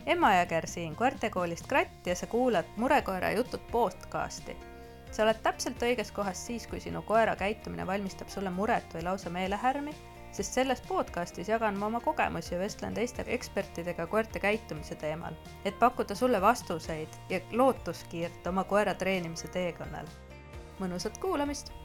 Emma Jõger siin koertekoolist Kratt ja sa kuulad Murekoera jutud podcasti. Sa oled täpselt õiges kohas siis, kui sinu koera käitumine valmistab sulle muret või lausa meelehärmi, sest selles podcastis jagan ma oma kogemusi ja vestlen teiste ekspertidega koerte käitumise teemal, et pakkuda sulle vastuseid ja lootuskiirt oma koera treenimise teekonnal. Mõnusat kuulamist!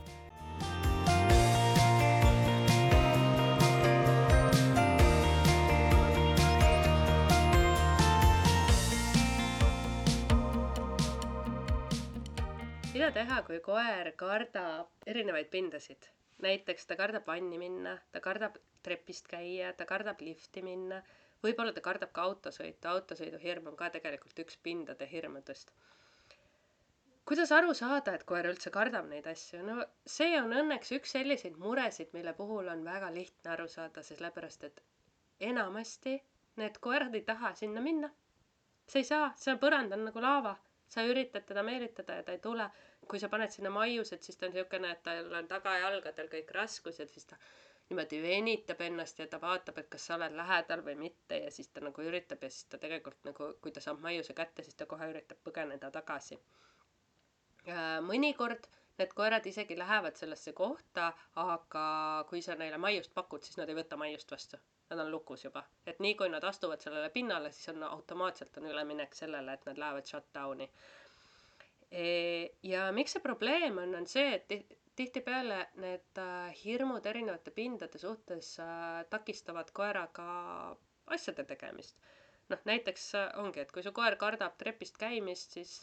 Mida teha, kui koer kardab erinevaid pindasid? Näiteks ta kardab vanni minna, ta kardab trepist käia, ta kardab lifti minna, võib-olla ta kardab ka autosõitu. Autosõidu hirm on ka tegelikult üks pindade hirmudest. Kuidas aru saada, et koer üldse kardab neid asju? No see on õnneks üks selliseid muresid, mille puhul on väga lihtne aru saada, sellepärast et enamasti need koerad ei taha sinna minna. See ei saa, see põrand on nagu laava. Sa üritad teda meelitada ja ta ei tule. Kui sa paned sinna maiused, siis ta on niisugune, et tal on tagajalgadel kõik raskused, siis ta niimoodi venitab ennast ja ta vaatab, et kas sa oled lähedal või mitte ja siis ta nagu üritab ja siis ta tegelikult nagu, kui ta saab maiuse kätte, siis ta kohe üritab põgeneda tagasi. Mõnikord need koerad isegi lähevad sellesse kohta, aga kui sa neile maiust pakud, siis nad ei võta maiust vastu. Nad on lukus juba. Et nii kui nad astuvad sellele pinnale, siis on automaatselt on üleminek sellele, et nad lähevad shutdowni. Ja miks see probleem on see, et tihtipeale need hirmud erinevate pindade suhtes takistavad koeraga asjade tegemist. Näiteks ongi, et kui su koer kardab trepist käimist, siis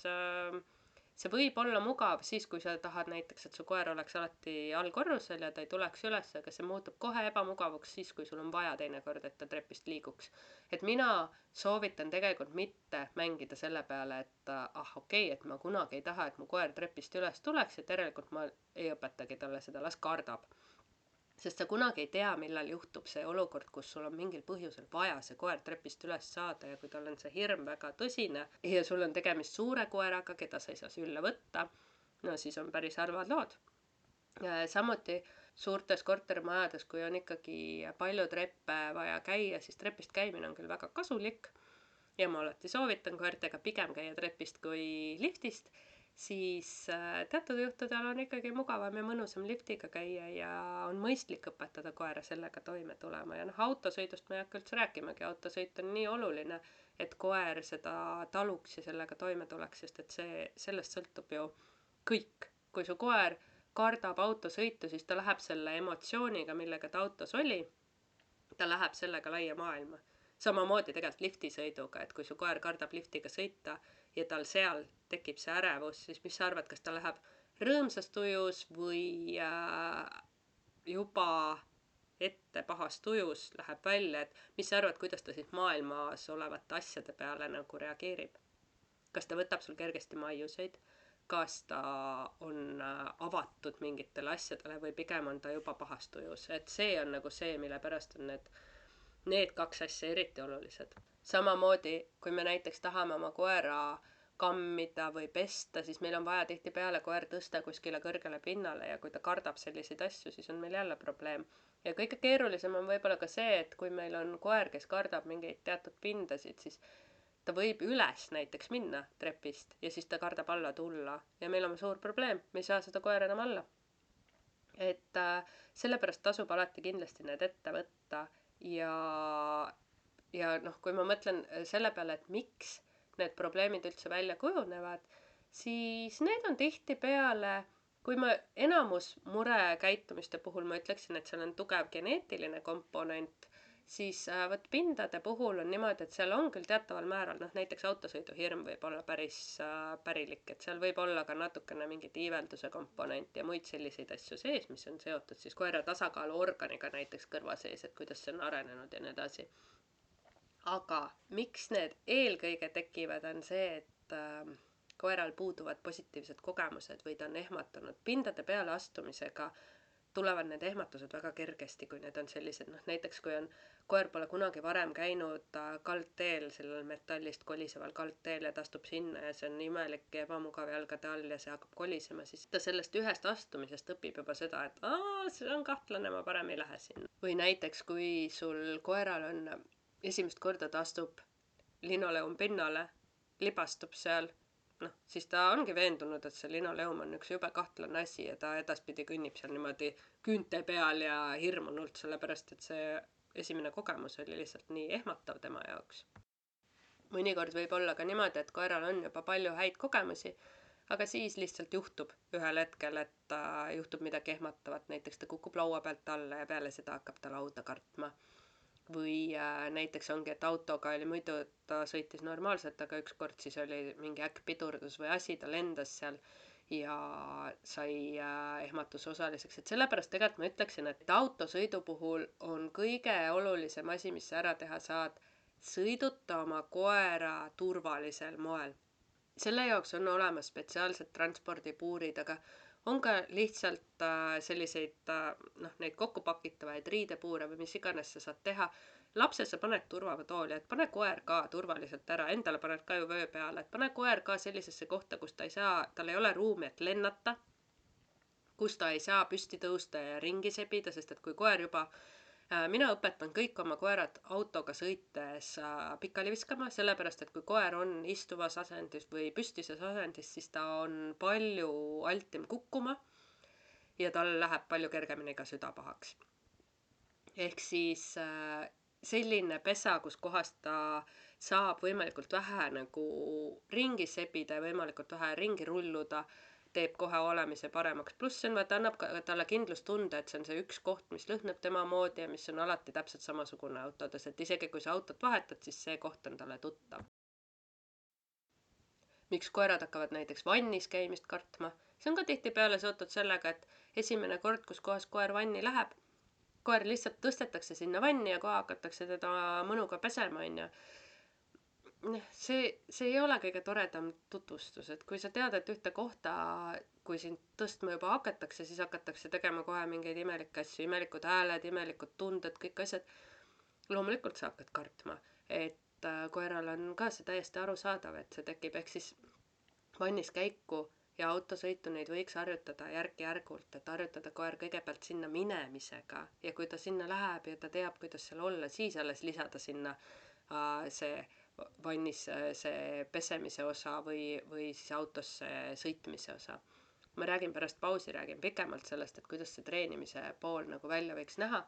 see võib olla mugav siis, kui sa tahad näiteks, et su koer oleks alati allkorrusel ja ta ei tuleks üles, aga see muutub kohe ebamugavaks siis, kui sul on vaja teinekord, et ta trepist liiguks. Et mina soovitan tegelikult mitte mängida selle peale, et okei, et ma kunagi ei taha, et mu koer trepist üles tuleks ja tegelikult ma ei õpetagi talle seda, las kardab. Sest sa kunagi ei tea, millal juhtub see olukord, kus sul on mingil põhjusel vaja see koer trepist üles saada ja kui tal on see hirm väga tõsine ja sul on tegemist suure koeraga, keda sa ei saa sülle võtta, no siis on päris harvad lood. Samuti suurtes kortermajades, kui on ikkagi palju treppe vaja käia, siis trepist käimine on küll väga kasulik ja ma alati soovitan koertega pigem käia trepist kui liftist, siis teatud juhtudel on ikkagi mugavam ja mõnusam liftiga käia ja on mõistlik õpetada koera sellega toime tulema. Ja autosõidust ma ei hakka üldse rääkimagi. Autosõit on nii oluline, et koer seda taluks ja sellega toime tuleks, sest et sellest sõltub ju kõik. Kui su koer kardab autosõitu, siis ta läheb selle emotsiooniga, millega ta autos oli, ta läheb sellega laia maailma. Samamoodi tegelikult liftisõiduga, et kui su koer kardab liftiga sõita ja tal seal tekib see ärevus, siis mis sa arvad, kas ta läheb rõõmsas tujus või juba ette pahas tujus läheb välja, et mis sa arvad, kuidas ta siis maailmas olevate asjade peale nagu reageerib? Kas ta võtab sul kergesti maiuseid? Kas ta on avatud mingitele asjadele või pigem on ta juba pahas tujus? Et see on nagu see, mille pärast on need kaks asja eriti olulised. Samamoodi, kui me näiteks tahame oma koera kammida või pesta, siis meil on vaja tihtipeale koer tõsta kuskile kõrgele pinnale ja kui ta kardab selliseid asju, siis on meil jälle probleem. Ja kõige keerulisem on võib-olla ka see, et kui meil on koer, kes kardab mingeid teatud pindasid, siis ta võib üles näiteks minna trepist ja siis ta kardab alla tulla ja meil on suur probleem, me ei saa seda koera enam alla. Et sellepärast tasub alati kindlasti need ette võtta ja kui ma mõtlen selle peale, et miks need probleemid üldse välja kujunevad, siis need on tihtipeale, kui ma enamus murekäitumiste puhul ma ütleksin, et seal on tugev geneetiline komponent, siis pindade puhul on niimoodi, et seal on küll teataval määral, näiteks autosõidu hirm võib olla päris pärilik, et seal võib olla ka natukene mingit iivelduse komponent ja muid selliseid asju sees, mis on seotud siis koera tasakaaluorganiga näiteks kõrva sees, et kuidas see on arenenud ja nii edasi. Aga miks need eelkõige tekivad on see, et koeral puuduvad positiivsed kogemused või ta on ehmatanud. Pindade peale astumisega tulevad need ehmatused väga kergesti, kui need on sellised, näiteks kui koer pole kunagi varem käinud kaldteel, sellel metallist koliseval kaldteel ja ta astub sinna ja see on imelik ja ebamugav jalgade all ja see hakkab kolisema, siis ta sellest ühest astumisest õpib juba seda, et see on kahtlane, ma parem ei lähe sinna. Või näiteks, kui sul koeral on esimest korda ta astub linoleum pinnale, libastub seal, noh, siis ta ongi veendunud, et see linoleum on üks jube kahtlane asi ja ta edaspidi kõnnib seal niimoodi küünte peal ja hirmunult, sellepärast et see esimene kogemus oli lihtsalt nii ehmatav tema jaoks. Mõnikord võib olla ka niimoodi, et koeral on juba palju häid kogemusi, aga siis lihtsalt juhtub ühel hetkel, et juhtub midagi ehmatavat, näiteks ta kukub laua pealt alla ja peale seda hakkab ta lauda kartma. Või näiteks ongi, et autoga oli muidu, ta sõitis normaalselt, aga ükskord siis oli mingi äkkpidurdus või asi, ta lendas seal ja sai ehmatuse osaliseks. Et sellepärast tegelikult ma ütleksin, et autosõidu puhul on kõige olulisem asi, mis sa ära teha saad, sõiduta oma koera turvalisel moel. Selle jaoks on olemas spetsiaalsed transpordipuurid, aga on ka lihtsalt selliseid, neid kokkupakitavaid riidepuure või mis iganes sa saad teha. Lapse sa paned turvatooli, et pane koer ka turvaliselt ära, endale paned ka ju vöö peale, et pane koer ka sellisesse kohta, kus ta ei saa, tal ei ole ruumi, et lennata, kus ta ei saa püsti tõusta ja ringi sebida, sest et kui koer juba mina õpetan kõik oma koerad autoga sõites pikali viskama, sellepärast et kui koer on istuvas asendis või püstises asendis, siis ta on palju altim kukkuma ja tal läheb palju kergemini ka süda pahaks. Ehk siis selline pesa, kus kohas ta saab võimalikult vähe nagu ringi sebida ja võimalikult vähe ringi rulluda, teeb kohe olemise paremaks. Pluss see on, vaata, annab talle kindlustunde, et see on see üks koht, mis lõhnab tema moodi ja mis on alati täpselt samasugune autodes, et isegi kui sa autot vahetad, siis see koht on talle tuttav. Miks koerad hakkavad näiteks vannis käimist kartma? See on ka tihtipeale seotud sellega, et esimene kord, kus kohas koer vanni läheb, koer lihtsalt tõstetakse sinna vanni ja kohe hakatakse teda mõnuga pesema, onju. See ei ole kõige toredam tutvustus, et kui sa tead, et ühte kohta, kui sind tõstma juba hakatakse, siis hakatakse tegema kohe mingeid imelikke asju, imelikud hääled, imelikud tunded, kõik asjad. Loomulikult sa hakkad kartma, et koeral on ka see täiesti arusaadav, et see tekib, ehk siis vannis käiku ja autosõitu neid võiks harjutada järk-järgult, et harjutada koer kõigepealt sinna minemisega ja kui ta sinna läheb ja ta teab, kuidas seal olla, siis alles lisada sinna see vannis see pesemise osa või siis autosse sõitmise osa. Ma räägin pärast pausi, räägin pikemalt sellest, et kuidas see treenimise pool nagu välja võiks näha,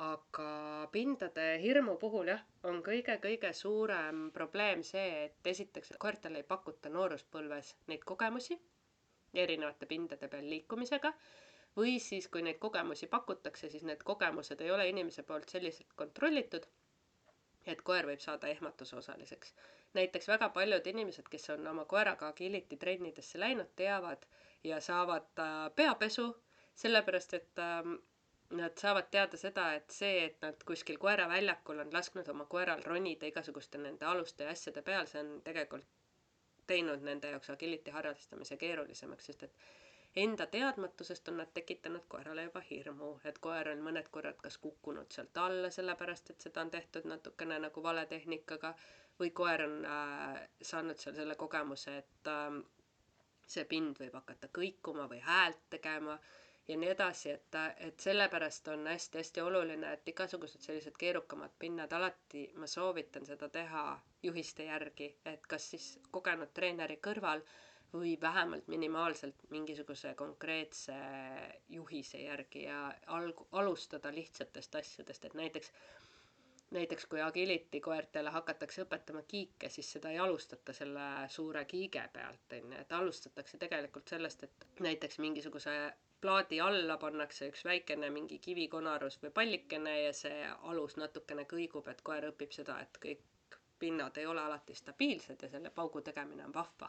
aga pindade hirmu puhul jah, on kõige suurem probleem see, et esiteks koertele ei pakuta nooruspõlves neid kogemusi erinevate pindade peal liikumisega, või siis kui neid kogemusi pakutakse, siis need kogemused ei ole inimese poolt selliselt kontrollitud, et koer võib saada ehmatuse osaliseks. Näiteks väga paljud inimesed, kes on oma koeraga agility trennidesse läinud, teavad ja saavad peapesu, sellepärast et nad saavad teada seda, et see, et nad kuskil koeraväljakul on lasknud oma koeral ronida igasuguste nende aluste ja asjade peal, see on tegelikult teinud nende jaoks agility harrastamise keerulisemaks, sest et enda teadmatusest on nad tekitanud koerale juba hirmu, et koer on mõned korrad kas kukkunud sealt alla, sellepärast et seda on tehtud natukene nagu vale tehnikaga, või koer on saanud seal selle kogemuse, et see pind võib hakata kõikuma või häält tegema ja nii edasi, et sellepärast on hästi oluline, et igasugused sellised keerukamad pinnad alati ma soovitan seda teha juhiste järgi, et kas siis kogenud treeneri kõrval või vähemalt minimaalselt mingisuguse konkreetse juhise järgi ja alustada lihtsatest asjadest, et näiteks kui agility koertele hakatakse õpetama kiike, siis seda ei alustata selle suure kiige pealt, et alustatakse tegelikult sellest, et näiteks mingisuguse plaadi alla pannakse üks väikene mingi kivikonarus või pallikene ja see alus natukene kõigub, et koer õpib seda, et kõik pinnad ei ole alati stabiilsed ja selle paugu tegemine on vahva.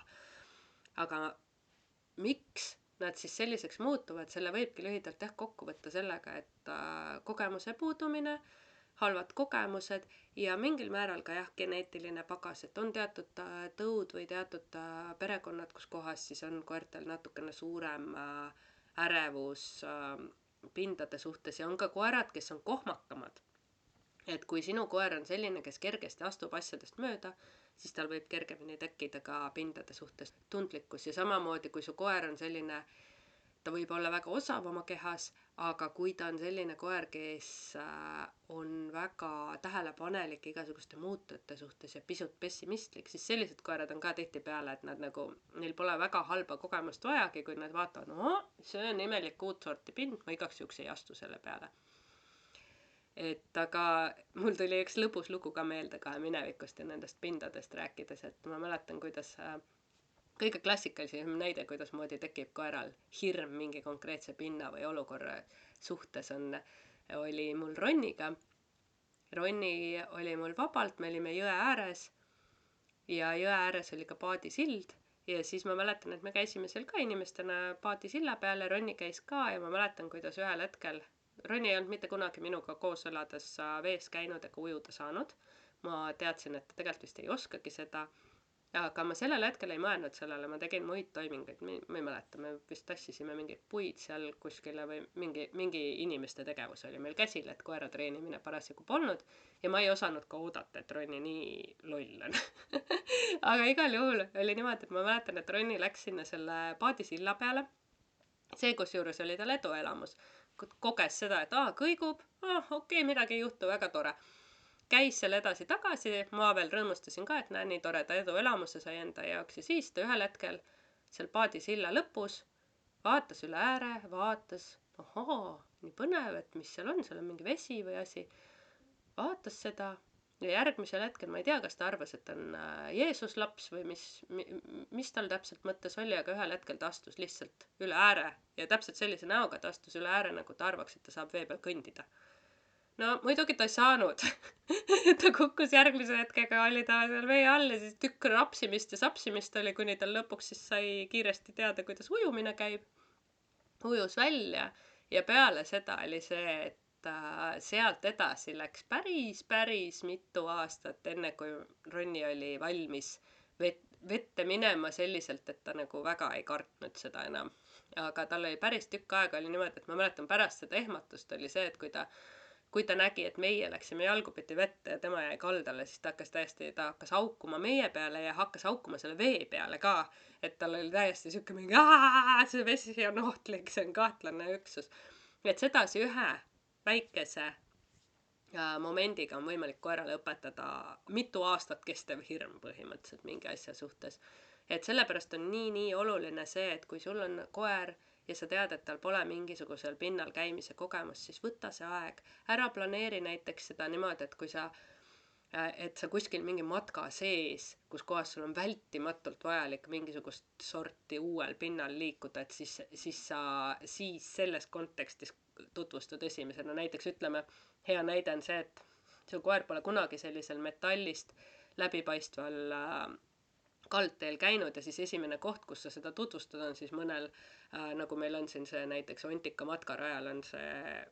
Aga miks nad siis selliseks muutuvad, selle võibki lühidalt kokku võtta sellega, et kogemuse puudumine, halvad kogemused ja mingil määral ka geneetiline pagas, et on teatud tõud või teatud perekonnad, kus kohas siis on koertel natukene suurem ärevus pindade suhtes ja on ka koerad, kes on kohmakamad. Et kui sinu koer on selline, kes kergesti astub asjadest mööda, siis tal võib kergemini tekkida ka pindade suhtes tundlikkus ja samamoodi, kui su koer on selline ta võib olla väga osav oma kehas, aga kui ta on selline koer, kes on väga tähelepanelik igasuguste muutujate suhtes ja pisut pessimistlik, siis sellised koerad on ka tihtipeale, et nad nagu, neil pole väga halba kogemust vajagi, kui nad vaatavad, no see on imelik uut sorti pind, ma igaks juhuks ei astu selle peale. Et aga mul tuli üks lõbus lugu ka meelde ka minevikust ja nendest pindadest rääkides, et ma mäletan, kuidas kõige klassikalisem näide, kuidas moodi tekib koeral hirm mingi konkreetse pinna või olukorra suhtes oli mul Ronniga. Ronni oli mul vabalt, me olime jõe ääres ja jõe ääres oli ka paadisild ja siis ma mäletan, et me käisime seal ka inimestena paadisilla peal ja Ronni käis ka ja ma mäletan, kuidas ühel hetkel Ronni ei olnud mitte kunagi minuga koos elades vees käinud ega ujuda saanud. Ma teadsin, et ta tegelikult vist ei oskagi seda. Aga ma sellel hetkel ei mõelnud sellele, ma tegin muid toiminguid, ma ei mäleta, me vist tassisime mingeid puid seal kuskile või mingi inimeste tegevus oli meil käsil, et koera treenimine parasjagu polnud ja ma ei osanud ka oodata, et Ronni nii loll on. Aga igal juhul oli niimoodi, et ma mäletan, et Ronni läks sinna selle paadisilla peale. See, kus juures oli tal eduelamus, koges seda, et kõigub, okei, midagi ei juhtu, väga tore. Käis seal edasi tagasi, ma veel rõõmustasin ka, et näe, nii toreda eduelamuse sai enda jaoks ja siis ta ühel hetkel seal paadisilla lõpus vaatas üle ääre, vaatas, nii põnev, et mis seal on mingi vesi või asi, vaatas seda ja järgmisel hetkel, ma ei tea, kas ta arvas, et on Jeesus laps või mis tal täpselt mõttes oli, aga ühel hetkel ta astus lihtsalt üle ääre ja täpselt sellise näoga ta astus üle ääre, nagu ta arvaks, et ta saab vee peal kõndida. No muidugi ta ei saanud. Ta kukkus järgmise hetkega, oli ta seal vee all ja siis tükk rapsimist ja sapsimist oli, kuni tal lõpuks siis sai kiiresti teada, kuidas ujumine käib. Ujus välja ja peale seda oli see, et sealt edasi läks päris mitu aastat, enne kui Ronni oli valmis vette minema selliselt, et ta nagu väga ei kartnud seda enam. Aga tal oli päris tükk aega oli niimoodi, et ma mäletan pärast seda ehmatust oli see, et kui ta nägi, et meie läksime jalgupidi vette ja tema jäi kaldale, siis ta hakkas haukuma meie peale ja hakkas haukuma selle vee peale ka. Et tal oli täiesti siuke mingi, see vesi on ohtlik, see on kahtlane üksus. Et sedasi ühe väikese momendiga on võimalik koerale õpetada mitu aastat kestev hirm põhimõtteliselt mingi asja suhtes. Et sellepärast on nii oluline see, et kui sul on koer ja sa tead, et tal pole mingisugusel pinnal käimise kogemus, siis võta see aeg. Ära planeeri näiteks seda niimoodi, et kui sa kuskil mingi matka sees, kus kohas sul on vältimatult vajalik mingisugust sorti uuel pinnal liikuda, et siis selles kontekstis tutvustad esimesena. Näiteks ütleme, hea näide on see, et su koer pole kunagi sellisel metallist läbipaistval kaldteel käinud ja siis esimene koht, kus sa seda tutvustad, on siis mõnel, nagu meil on siin see näiteks Ontika matkarajal on see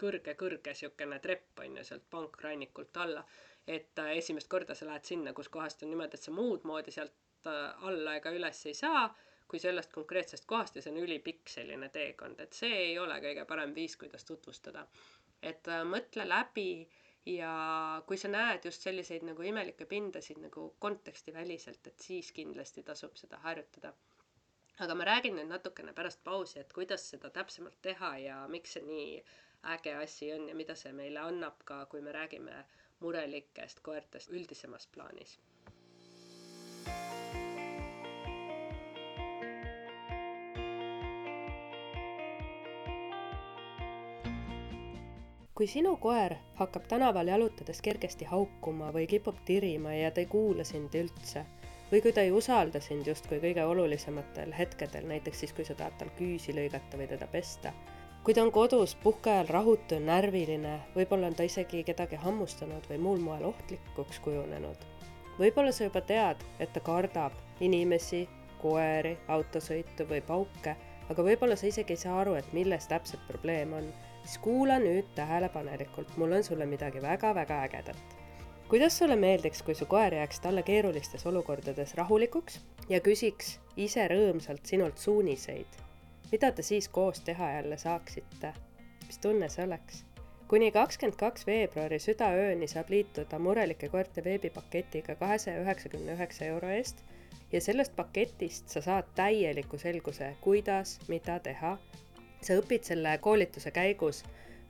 kõrge siukene trepp on ju sealt pankrannikult alla, et esimest korda sa lähed sinna, kus kohast on niimoodi, et sa muud moodi sealt alla ega üles ei saa, kui sellest konkreetsest kohast ja see on ülipikk selline teekond, et see ei ole kõige parem viis, kuidas tutvustada. Et mõtle läbi ja kui sa näed just selliseid nagu imelikke pindasid nagu konteksti väliselt, et siis kindlasti tasub seda harjutada. Aga ma räägin nüüd natukene pärast pausi, et kuidas seda täpsemalt teha ja miks see nii äge asi on ja mida see meile annab ka, kui me räägime murelikest koertest üldisemas plaanis. Kui sinu koer hakkab tänaval jalutades kergesti haukuma või kipub tirima ja ta ei kuula sind üldse, või kui ta ei usalda sind justkui kõige olulisematel hetkedel, näiteks siis, kui sa tahad tal küüsi lõigata või teda pesta. Kui ta on kodus puhkeajal rahutu ja närviline, võib-olla on ta isegi kedagi hammustanud või muul moel ohtlikuks kujunenud. Võib-olla sa juba tead, et ta kardab inimesi, koeri, autosõitu või pauke, aga võib-olla sa isegi ei saa aru, et milles täpselt probleem on. Siis kuula nüüd tähelepanelikult, mul on sulle midagi väga-väga ägedat. Kuidas sulle meeldiks, kui su koer jääks talle keerulistes olukordades rahulikuks ja küsiks ise rõõmsalt sinult suuniseid? Mida te siis koos teha jälle saaksite? Mis tunne see oleks? Kuni 22. veebruari südaööni saab liituda murelike koerte veebipaketiga 299 € eest ja sellest paketist sa saad täieliku selguse, kuidas, mida teha. Sa õpid selle koolituse käigus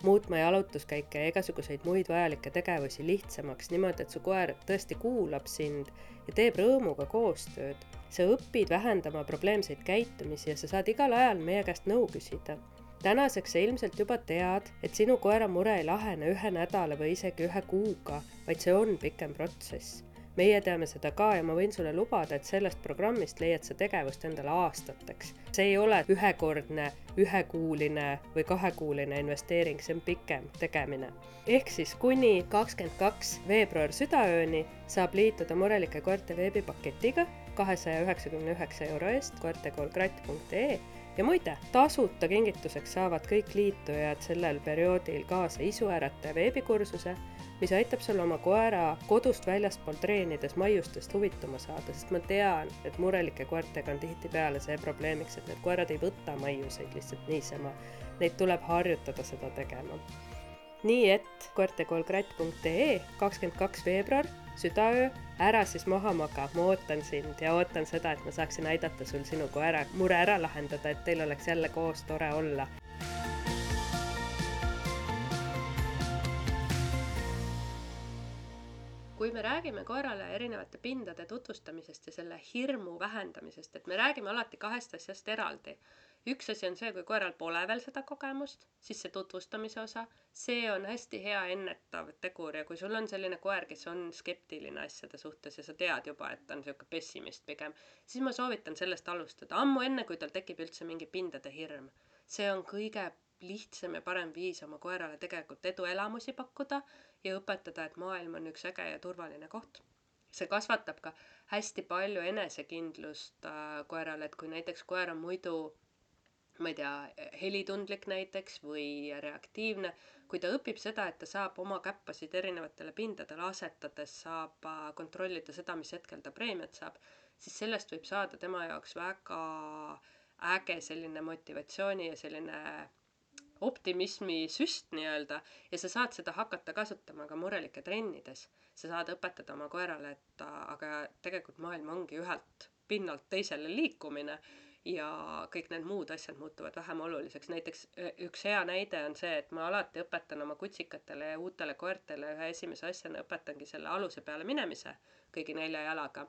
muutma jalutuskäike ja igasuguseid muid vajalikke tegevusi lihtsamaks niimoodi, et su koer tõesti kuulab sind ja teeb rõõmuga koostööd. Sa õpid vähendama probleemseid käitumisi ja sa saad igal ajal meie käest nõu küsida. Tänaseks sa ilmselt juba tead, et sinu koera mure ei lahene 1 nädala või isegi 1 kuuga, vaid see on pikem protsess. Meie teame seda ka ja ma võin sulle lubada, et sellest programmist leiad sa tegevust endale aastateks. See ei ole ühekordne, 1-kuuline või 2-kuuline investeering, see on pikem tegemine. Ehk siis kuni 22. veebruar südaööni saab liituda Murelike koerte veebipaketiga 299 € eest koertekoolkratt.ee. Ja muide, tasuta kingituseks saavad kõik liitujad sellel perioodil kaasa isuärataja veebikursuse, mis aitab sul oma koera kodust väljaspool treenides maiustest huvituma saada, sest ma tean, et murelike koertega on tihtipeale see probleemiks, et need koerad ei võta maiuseid lihtsalt niisama. Neid tuleb harjutada seda tegema. Nii et koertekoolkratt.ee 22. veebruar, südaöö, ära siis maha maga, ma ootan sind ja ootan seda, et ma saaksin aidata sul sinu koera mure ära lahendada, et teil oleks jälle koos tore olla. Kui me räägime koerale erinevate pindade tutvustamisest ja selle hirmu vähendamisest, et me räägime alati 2 asjast eraldi. Üks asi on see, kui koeral pole veel seda kogemust, siis see tutvustamise osa, see on hästi hea ennetav tegur ja kui sul on selline koer, kes on skeptiline asjade suhtes ja sa tead juba, et ta on selline pessimist pigem, siis ma soovitan sellest alustada, ammu enne, kui tal tekib üldse mingi pindade hirm. See on kõige lihtsam ja parem viis oma koerale tegelikult eduelamusi pakkuda ja õpetada, et maailm on üks äge ja turvaline koht. See kasvatab ka hästi palju enesekindlust koerale, et kui näiteks koer on muidu, ma ei tea, helitundlik näiteks või reaktiivne, kui ta õpib seda, et ta saab oma käppasid erinevatele pindadele asetades, saab kontrollida seda, mis hetkel ta preemiat saab, siis sellest võib saada tema jaoks väga äge selline motivatsiooni ja selline optimismi süst nii-öelda ja sa saad seda hakata kasutama ka murelike trennides. Sa saad õpetada oma koerale, et aga tegelikult maailm ongi ühelt pinnalt teisele liikumine ja kõik need muud asjad muutuvad vähem oluliseks. Näiteks üks hea näide on see, et ma alati õpetan oma kutsikatele ja uutele koertele ühe esimese asjana õpetangi selle aluse peale minemise kõigi 4 jalaga.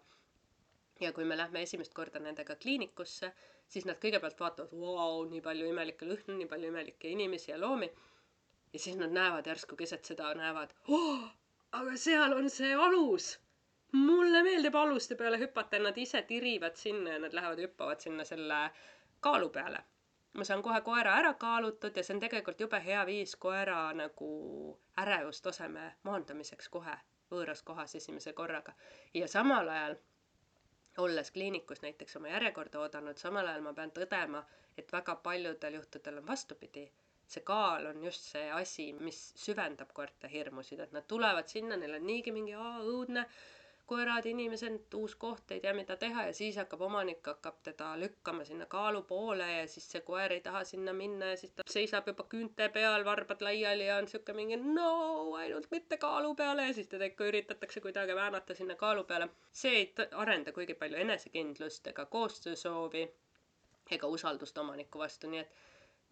Ja kui me lähme esimest korda nendega kliinikusse, siis nad kõigepealt vaatavad, vau, nii palju imelikke lõhnu, nii palju imelikke inimesi ja loomi. Ja siis nad näevad järsku keset seda, näevad, aga seal on see alus. Mulle meeldib aluste peale hüpata ja nad ise tirivad sinna ja nad lähevad hüppavad sinna selle kaalu peale. Ma saan kohe koera ära kaalutud ja see on tegelikult jube hea viis koera nagu ärevustaseme maandamiseks kohe võõras kohas esimese korraga. Ja samal ajal olles kliinikus näiteks oma järjekorda oodanud, samal ajal ma pean tõdema, et väga paljudel juhtudel on vastupidi. See kaal on just see asi, mis süvendab koerte hirmusid, et nad tulevad sinna, neil on niigi mingi õudne koerad, inimesed, uus koht, ei tea mida teha ja siis omanik hakkab teda lükkama sinna kaalu poole ja siis see koer ei taha sinna minna ja siis ta seisab juba küünte peal, varbad laiali ja on siuke mingi no, ainult mitte kaalu peale ja siis teda ikka üritatakse kuidagi väänata sinna kaalu peale. See ei arenda kuigi palju enesekindlust ega koostöösoovi ega usaldust omaniku vastu, nii et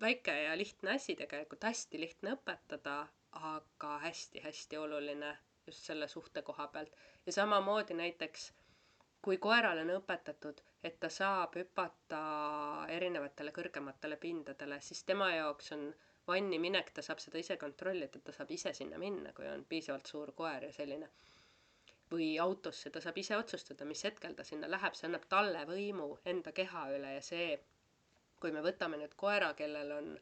väike ja lihtne asi tegelikult, hästi lihtne õpetada, aga hästi-hästi oluline just selle suhte koha pealt. Ja samamoodi näiteks, kui koerale on õpetatud, et ta saab hüpata erinevatele kõrgematele pindadele, siis tema jaoks on vanni minek, ta saab seda ise kontrollida, ta saab ise sinna minna, kui on piisavalt suur koer ja selline. Või autosse, ta saab ise otsustada, mis hetkel ta sinna läheb, see annab talle võimu enda keha üle ja see, kui me võtame nüüd koera, kellel on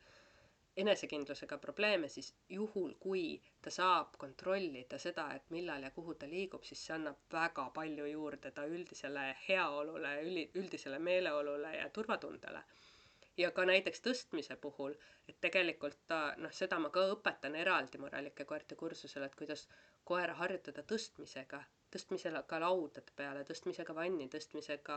enesekindlusega probleeme, siis juhul, kui ta saab kontrollida seda, et millal ja kuhu ta liigub, siis see annab väga palju juurde ta üldisele heaolule, üldisele meeleolule ja turvatundele. Ja ka näiteks tõstmise puhul, et tegelikult seda ma ka õpetan eraldi murelike koerte kursusel, et kuidas koera harjutada tõstmisega tõstmisega laudade peale, tõstmisega vanni, tõstmisega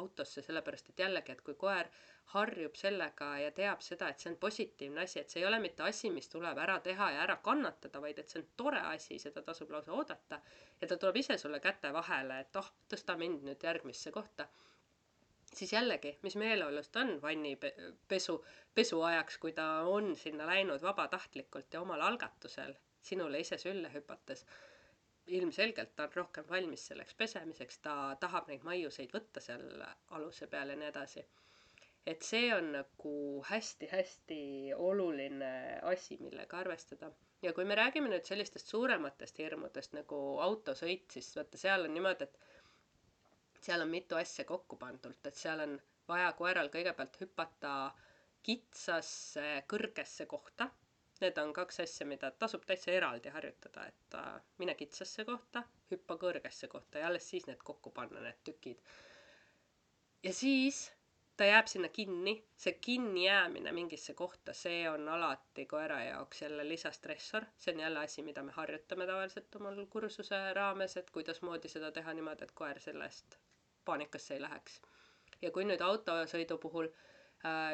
autosse, sellepärast et jällegi, et kui koer harjub sellega ja teab seda, et see on positiivne asi, et see ei ole mitte asi, mis tuleb ära teha ja ära kannatada, vaid et see on tore asi, seda tasub lausa oodata ja ta tuleb ise sulle käte vahele, et tõsta mind nüüd järgmisse kohta, siis jällegi, mis meeleolust on pesu ajaks, kui ta on sinna läinud vabatahtlikult ja omal algatusel sinule ise sülle hüpates, ilmselgelt ta on rohkem valmis selleks pesemiseks, ta tahab neid maiuseid võtta seal aluse peal ja nii edasi. Et see on nagu hästi-hästi oluline asi, millega arvestada. Ja kui me räägime nüüd sellistest suurematest hirmudest nagu autosõit, siis vaata, seal on niimoodi, et seal on mitu asja kokku pandult, et seal on vaja koeral kõigepealt hüpata kitsasse kõrgesse kohta. Need on kaks asja, mida tasub täitsa eraldi harjutada, et mine kitsasse kohta, hüppa kõrgesse kohta ja alles siis need kokku panna, need tükid. Ja siis ta jääb sinna kinni, see kinni jäämine mingisse kohta, see on alati koera jaoks jälle lisastressor. See on jälle asi, mida me harjutame tavaliselt omal kursuse raames, et kuidas moodi seda teha niimoodi, et koer sellest paanikasse ei läheks. Ja kui nüüd autosõidu puhul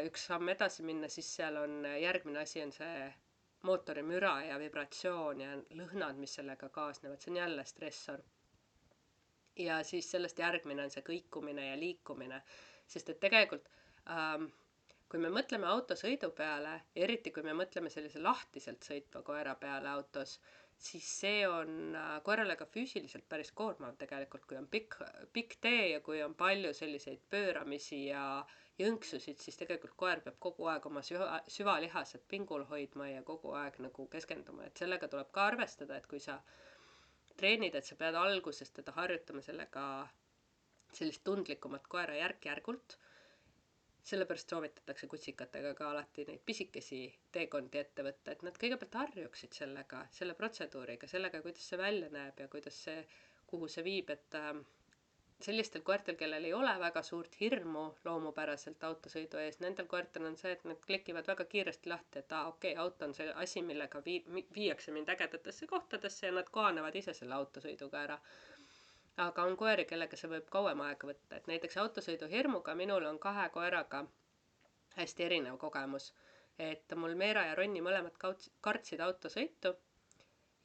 üks samm edasi minna, siis seal on järgmine asi on see mootori müra ja vibratsioon ja lõhnad, mis sellega kaasnevad, see on jälle stressor. Ja siis sellest järgmine on see kõikumine ja liikumine, sest et tegelikult kui me mõtleme autosõidu peale, eriti kui me mõtleme sellise lahtiselt sõitva koera peale autos, siis see on koerale ka füüsiliselt päris koormav tegelikult, kui on pikk tee ja kui on palju selliseid pööramisi ja jõnksusid, siis tegelikult koer peab kogu aeg oma süvalihased pingul hoidma ja kogu aeg nagu keskenduma, et sellega tuleb ka arvestada, et kui sa treenid, et sa pead alguses teda harjutama sellega sellist tundlikumat koera järk-järgult, sellepärast soovitatakse kutsikatega ka alati neid pisikesi teekondi ette võtta, et nad kõigepealt harjuksid sellega, selle protseduuriga, sellega, kuidas see välja näeb ja kuidas see, kuhu see viib, et sellistel koertel, kellel ei ole väga suurt hirmu loomupäraselt autosõidu ees, nendel koertel on see, et nad klikivad väga kiiresti lahti, et okei, auto on see asi, millega viiakse mind ägedatesse kohtadesse ja nad kohanevad ise selle autosõiduga ära. Aga on koeri, kellega see võib kauem aega võtta, et näiteks autosõidu hirmuga minul on 2 koeraga hästi erinev kogemus, et mul Meera ja Ronni mõlemad kartsid autosõitu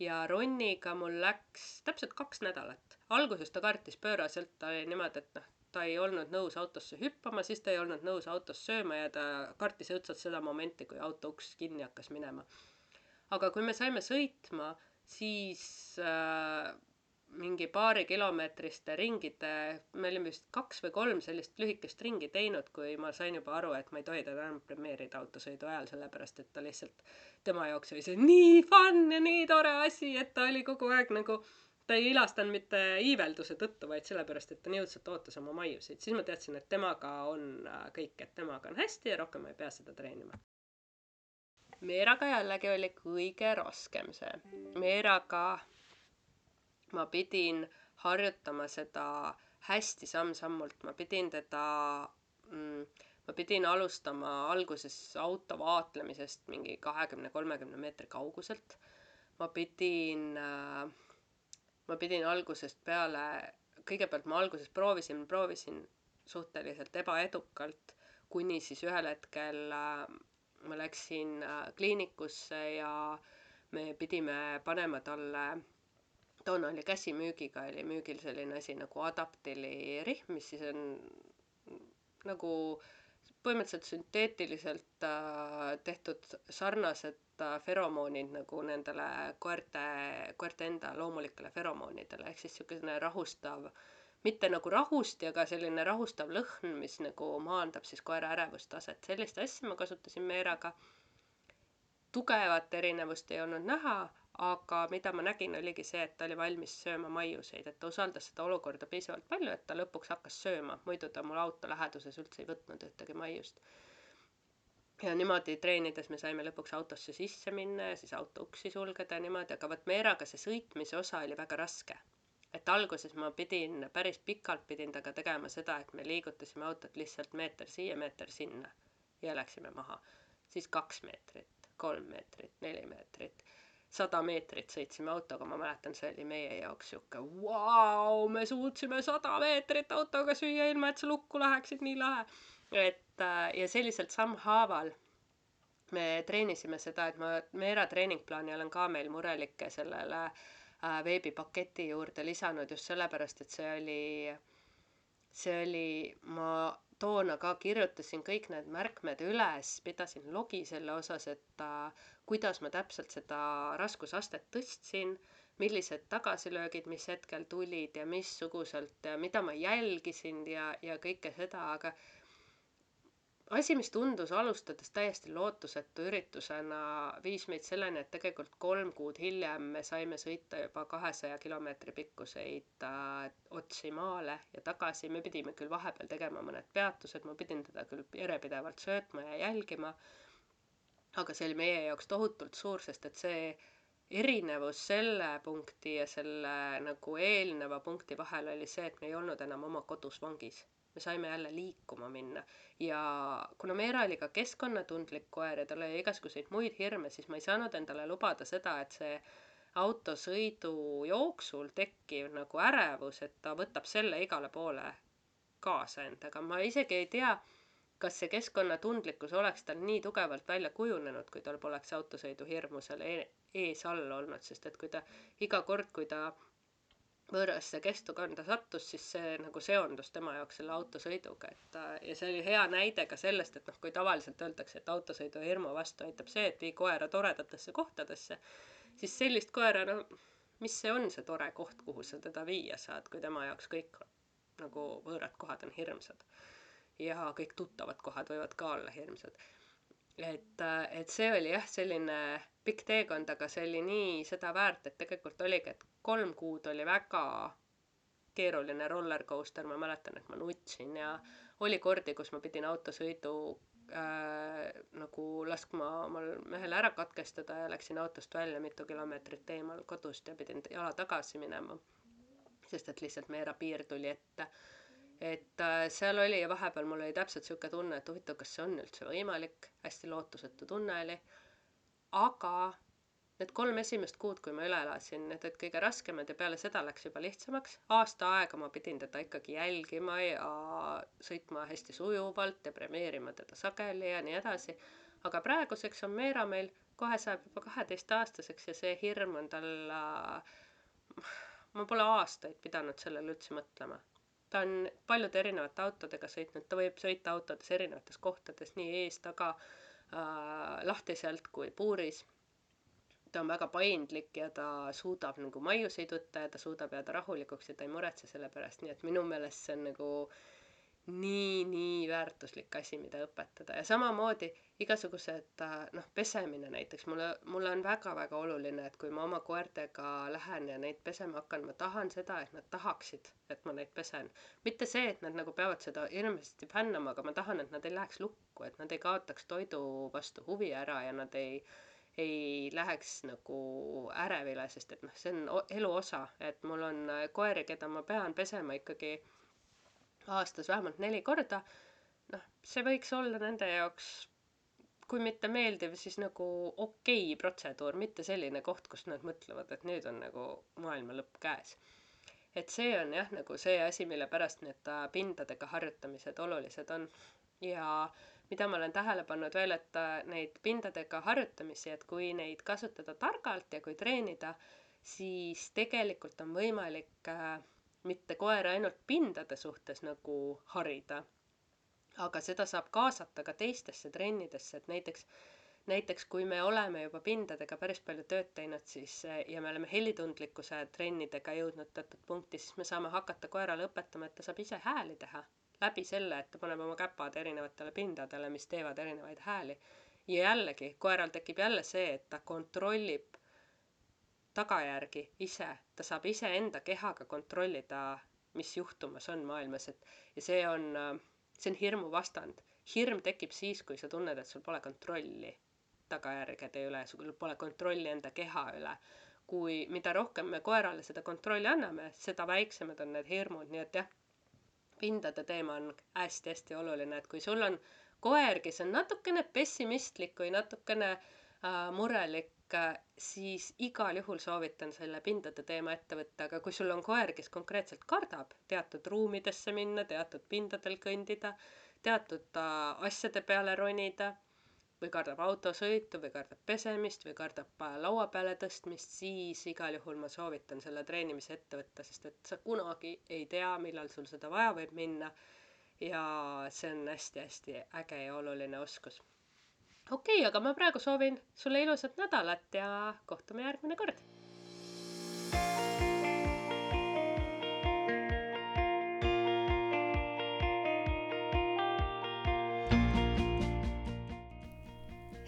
ja Ronniga mul läks täpselt 2 nädalat. Alguses ta kartis pööraselt, ta oli niimoodi, et ta ei olnud nõus autosse hüppama, siis ta ei olnud nõus autos sööma ja ta kartis õudselt seda momenti, kui auto uks kinni hakkas minema. Aga kui me saime sõitma, siis mingi paari kilomeetriste ringide, me olime vist 2 või 3 sellist lühikest ringi teinud, kui ma sain juba aru, et ma ei tohi teda enam premeerida autosõidu ajal, sellepärast et ta lihtsalt, tema jaoks oli see nii fun ja nii tore asi, et ta oli kogu aeg nagu, ta ei ilastanud mitte iivelduse tõttu, vaid sellepärast, et ta nii õudselt ootas oma maiusid. Siis ma teadsin, et temaga on kõik, et temaga on hästi ja rohkem ma ei pea seda treenima. Meeraga jällegi oli kõige raskem see. Meeraga ma pidin harjutama seda hästi samm-sammult, ma pidin alustama alguses auto vaatlemisest mingi 20-30 meetri kauguselt. Ma pidin algusest peale, kõigepealt ma alguses proovisin suhteliselt ebaedukalt, kuni siis ühel hetkel ma läksin kliinikusse ja me pidime panema talle, toona oli käsimüügiga, oli müügil selline asi nagu adaptili rihm, mis siis on nagu põhimõtteliselt sünteetiliselt tehtud sarnased feromoonid nagu nendele koerte enda loomulikele feromoonidele, ehk siis niisugune rahustav, mitte nagu rahusti, aga selline rahustav lõhn, mis nagu maandab siis koera ärevustaset. Sellist asja ma kasutasin Meeraga. Tugevat erinevust ei olnud näha, aga mida ma nägin, oligi see, et ta oli valmis sööma maiuseid, et ta usaldas seda olukorda piisavalt palju, et ta lõpuks hakkas sööma, muidu ta mul auto läheduses üldse ei võtnud ühtegi maiust. Ja niimoodi treenides me saime lõpuks autosse sisse minna ja siis auto uksi sulgeda ja niimoodi, aga võt Meeraga see sõitmise osa oli väga raske. Et alguses ma päris pikalt pidin taga tegema seda, et me liigutasime autot lihtsalt meeter siia, meeter sinna ja läksime maha. Siis 2 meetrit, 3 meetrit, 4 meetrit. 100 meetrit sõitsime autoga, ma mäletan, see oli meie jaoks sihuke vau, me suutsime 100 meetrit autoga süüa ilma, et sa lukku läheksid, nii lahe. Ja selliselt sammhaaval me treenisime seda, et ma Meera treeningplaani olen ka meil murelike sellele veebipaketi juurde lisanud just sellepärast, et see oli, ma toona ka kirjutasin kõik need märkmed üles, pidasin logi selle osas, et kuidas ma täpselt seda raskusastet tõstsin, millised tagasilöögid, mis hetkel tulid ja missuguselt, mida ma jälgisin ja kõike seda, aga asi, mis tundus alustades täiesti lootusetu üritusena, viis meid selleni, et tegelikult 3 kuud hiljem me saime sõita juba 200 kilomeetri pikkuseid otsi maale ja tagasi. Me pidime küll vahepeal tegema mõned peatused, ma pidin teda küll järjepidevalt söötma ja jälgima, aga see oli meie jaoks tohutult suur, sest et see erinevus selle punkti ja selle nagu eelneva punkti vahel oli see, et me ei olnud enam oma kodus vangis. Me saime jälle liikuma minna ja kuna Meera oli ka keskkonnatundlik koer ja tal oli igasuguseid muid hirme, siis ma ei saanud endale lubada seda, et see autosõidu jooksul tekkiv nagu ärevus, et ta võtab selle igale poole kaasa endaga. Ma isegi ei tea, kas see keskkonnatundlikkus oleks tal nii tugevalt välja kujunenud, kui tal poleks autosõidu hirmu seal ees all olnud, sest et kui ta iga kord, kui ta võõrasse kestukanda sattus, siis see nagu seondus tema jaoks selle autosõiduga, ja see oli hea näide ka sellest, et noh, kui tavaliselt öeldakse, et autosõidu hirmu vastu aitab see, et vii koera toredatesse kohtadesse, siis sellist koera, no mis see on see tore koht, kuhu sa teda viia saad, kui tema jaoks kõik nagu võõrad kohad on hirmsad ja kõik tuttavad kohad võivad ka olla hirmsad. Et see oli jah, selline pikk teekond, aga see oli nii seda väärt, et tegelikult oligi, et 3 kuud oli väga keeruline rollercoaster, ma mäletan, et ma nutsin ja oli kordi, kus ma pidin autosõidu nagu laskma omal mehel ära katkestada ja läksin autost välja mitu kilomeetrit eemal kodust ja pidin jala tagasi minema, sest et lihtsalt Meera piir tuli ette. Et seal oli ja vahepeal mul oli täpselt sihuke tunne, et huvitav, kas see on üldse võimalik, hästi lootusetu tunne oli, aga need 3 esimest kuud, kui ma üle elasin, need olid kõige raskemad ja peale seda läks juba lihtsamaks. Aasta aega ma pidin teda ikkagi jälgima ja sõitma hästi sujuvalt ja premeerima teda sageli ja nii edasi, aga praeguseks on Meera meil, kohe saab juba 12-aastaseks ja see hirm on tal, ma pole aastaid pidanud sellele üldse mõtlema. Ta on paljude erinevate autodega sõitnud, ta võib sõita autodes erinevates kohtades, nii ees, taga, lahtiselt kui puuris. Ta on väga paindlik ja ta suudab nagu maiuseid võtta ja ta suudab jääda rahulikuks ja ta ei muretse selle pärast, nii et minu meelest see on nagu nii väärtuslik asi, mida õpetada. Ja samamoodi igasugused, pesemine näiteks, mulle on väga oluline, et kui ma oma koertega lähen ja neid pesema hakkan, ma tahan seda, et nad tahaksid, et ma neid pesen. Mitte see, et nad nagu peavad seda hirmsasti fännama, aga ma tahan, et nad ei läheks lukku, et nad ei kaotaks toidu vastu huvi ära ja nad ei läheks nagu ärevile, sest et see on elu osa, et mul on koeri, keda ma pean pesema ikkagi aastas vähemalt 4 korda, see võiks olla nende jaoks, kui mitte meeldiv, siis nagu okei protseduur, mitte selline koht, kus nad mõtlevad, et nüüd on nagu maailma lõpp käes. Et see on jah, nagu see asi, mille pärast need pindadega harjutamised olulised on. Ja mida ma olen tähele pannud veel, et neid pindadega harjutamisi, et kui neid kasutada targalt ja kui treenida, siis tegelikult on võimalik mitte koera ainult pindade suhtes nagu harida, aga seda saab kaasata ka teistesse trennidesse, et näiteks kui me oleme juba pindadega päris palju tööd teinud, siis ja me oleme helitundlikkuse trennidega jõudnud teatud punkti, siis me saame hakata koerale õpetama, et ta saab ise hääli teha läbi selle, et ta paneb oma käpad erinevatele pindadele, mis teevad erinevaid hääli. Ja jällegi, koeral tekib jälle see, et ta kontrollib tagajärgi ise, ta saab ise enda kehaga kontrollida, mis juhtumas on maailmas, ja see on hirmu vastand. Hirm tekib siis, kui sa tunned, et sul pole kontrolli tagajärgede üle, sul pole kontrolli enda keha üle. Kui mida rohkem me koerale seda kontrolli anname, seda väiksemad on need hirmud, nii et jah, pindade teema on hästi oluline, et kui sul on koer, kes on natukene pessimistlik või natukene murelik siis igal juhul soovitan selle pindade teema ette võtta, aga kui sul on koer, kes konkreetselt kardab teatud ruumidesse minna, teatud pindadel kõndida, teatud asjade peale ronida, või kardab autosõitu, või kardab pesemist, või kardab laua peale tõstmist, siis igal juhul ma soovitan selle treenimise ette võtta, sest et sa kunagi ei tea, millal sul seda vaja võib minna ja see on hästi-hästi äge ja oluline oskus. Okei, aga ma praegu soovin sulle ilusat nädalat ja kohtume järgmine kord.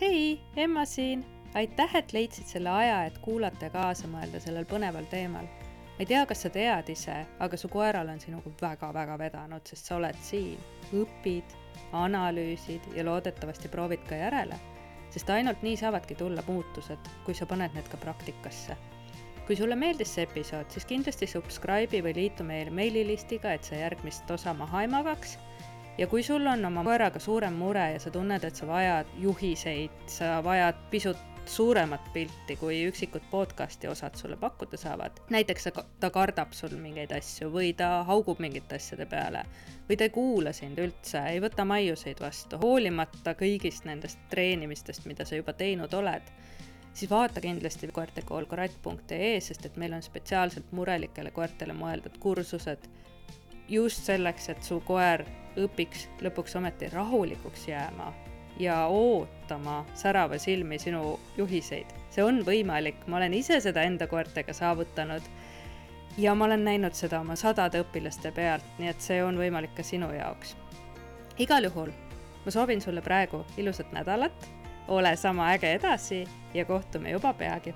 Hei, Emma siin! Aitäh, et leidsid selle aja, et kuulata ja kaasa mõelda sellel põneval teemal. Ma ei tea, kas sa tead ise, aga su koeral on sinuga väga-väga vedanud, sest sa oled siin, õpid, analüüsid ja loodetavasti proovid ka järele, sest ainult nii saavadki tulla muutused, kui sa paned need ka praktikasse. Kui sulle meeldis see episood, siis kindlasti subscribe'i või liitu meil meililistiga, et sa järgmist osa maha ei magaks. Ja kui sul on oma koeraga suurem mure ja sa tunned, et sa vajad juhiseid, sa vajad pisut suuremat pilti, kui üksikud podcasti osad sulle pakkuda saavad. Näiteks ta kardab sul mingeid asju või ta haugub mingite asjade peale või ta ei kuula sind üldse, ei võta maiuseid vastu, hoolimata kõigist nendest treenimistest, mida sa juba teinud oled. Siis vaata kindlasti koertekoolkorat.ee, sest et meil on spetsiaalselt murelikele koertele mõeldud kursused just selleks, et su koer õpiks lõpuks ometi rahulikuks jääma ja ootama särava silmi sinu juhiseid. See on võimalik, ma olen ise seda enda koertega saavutanud ja ma olen näinud seda oma 100 õpilaste pealt, nii et see on võimalik ka sinu jaoks. Igal juhul, ma soovin sulle praegu ilusat nädalat, ole sama äge edasi ja kohtume juba peagi.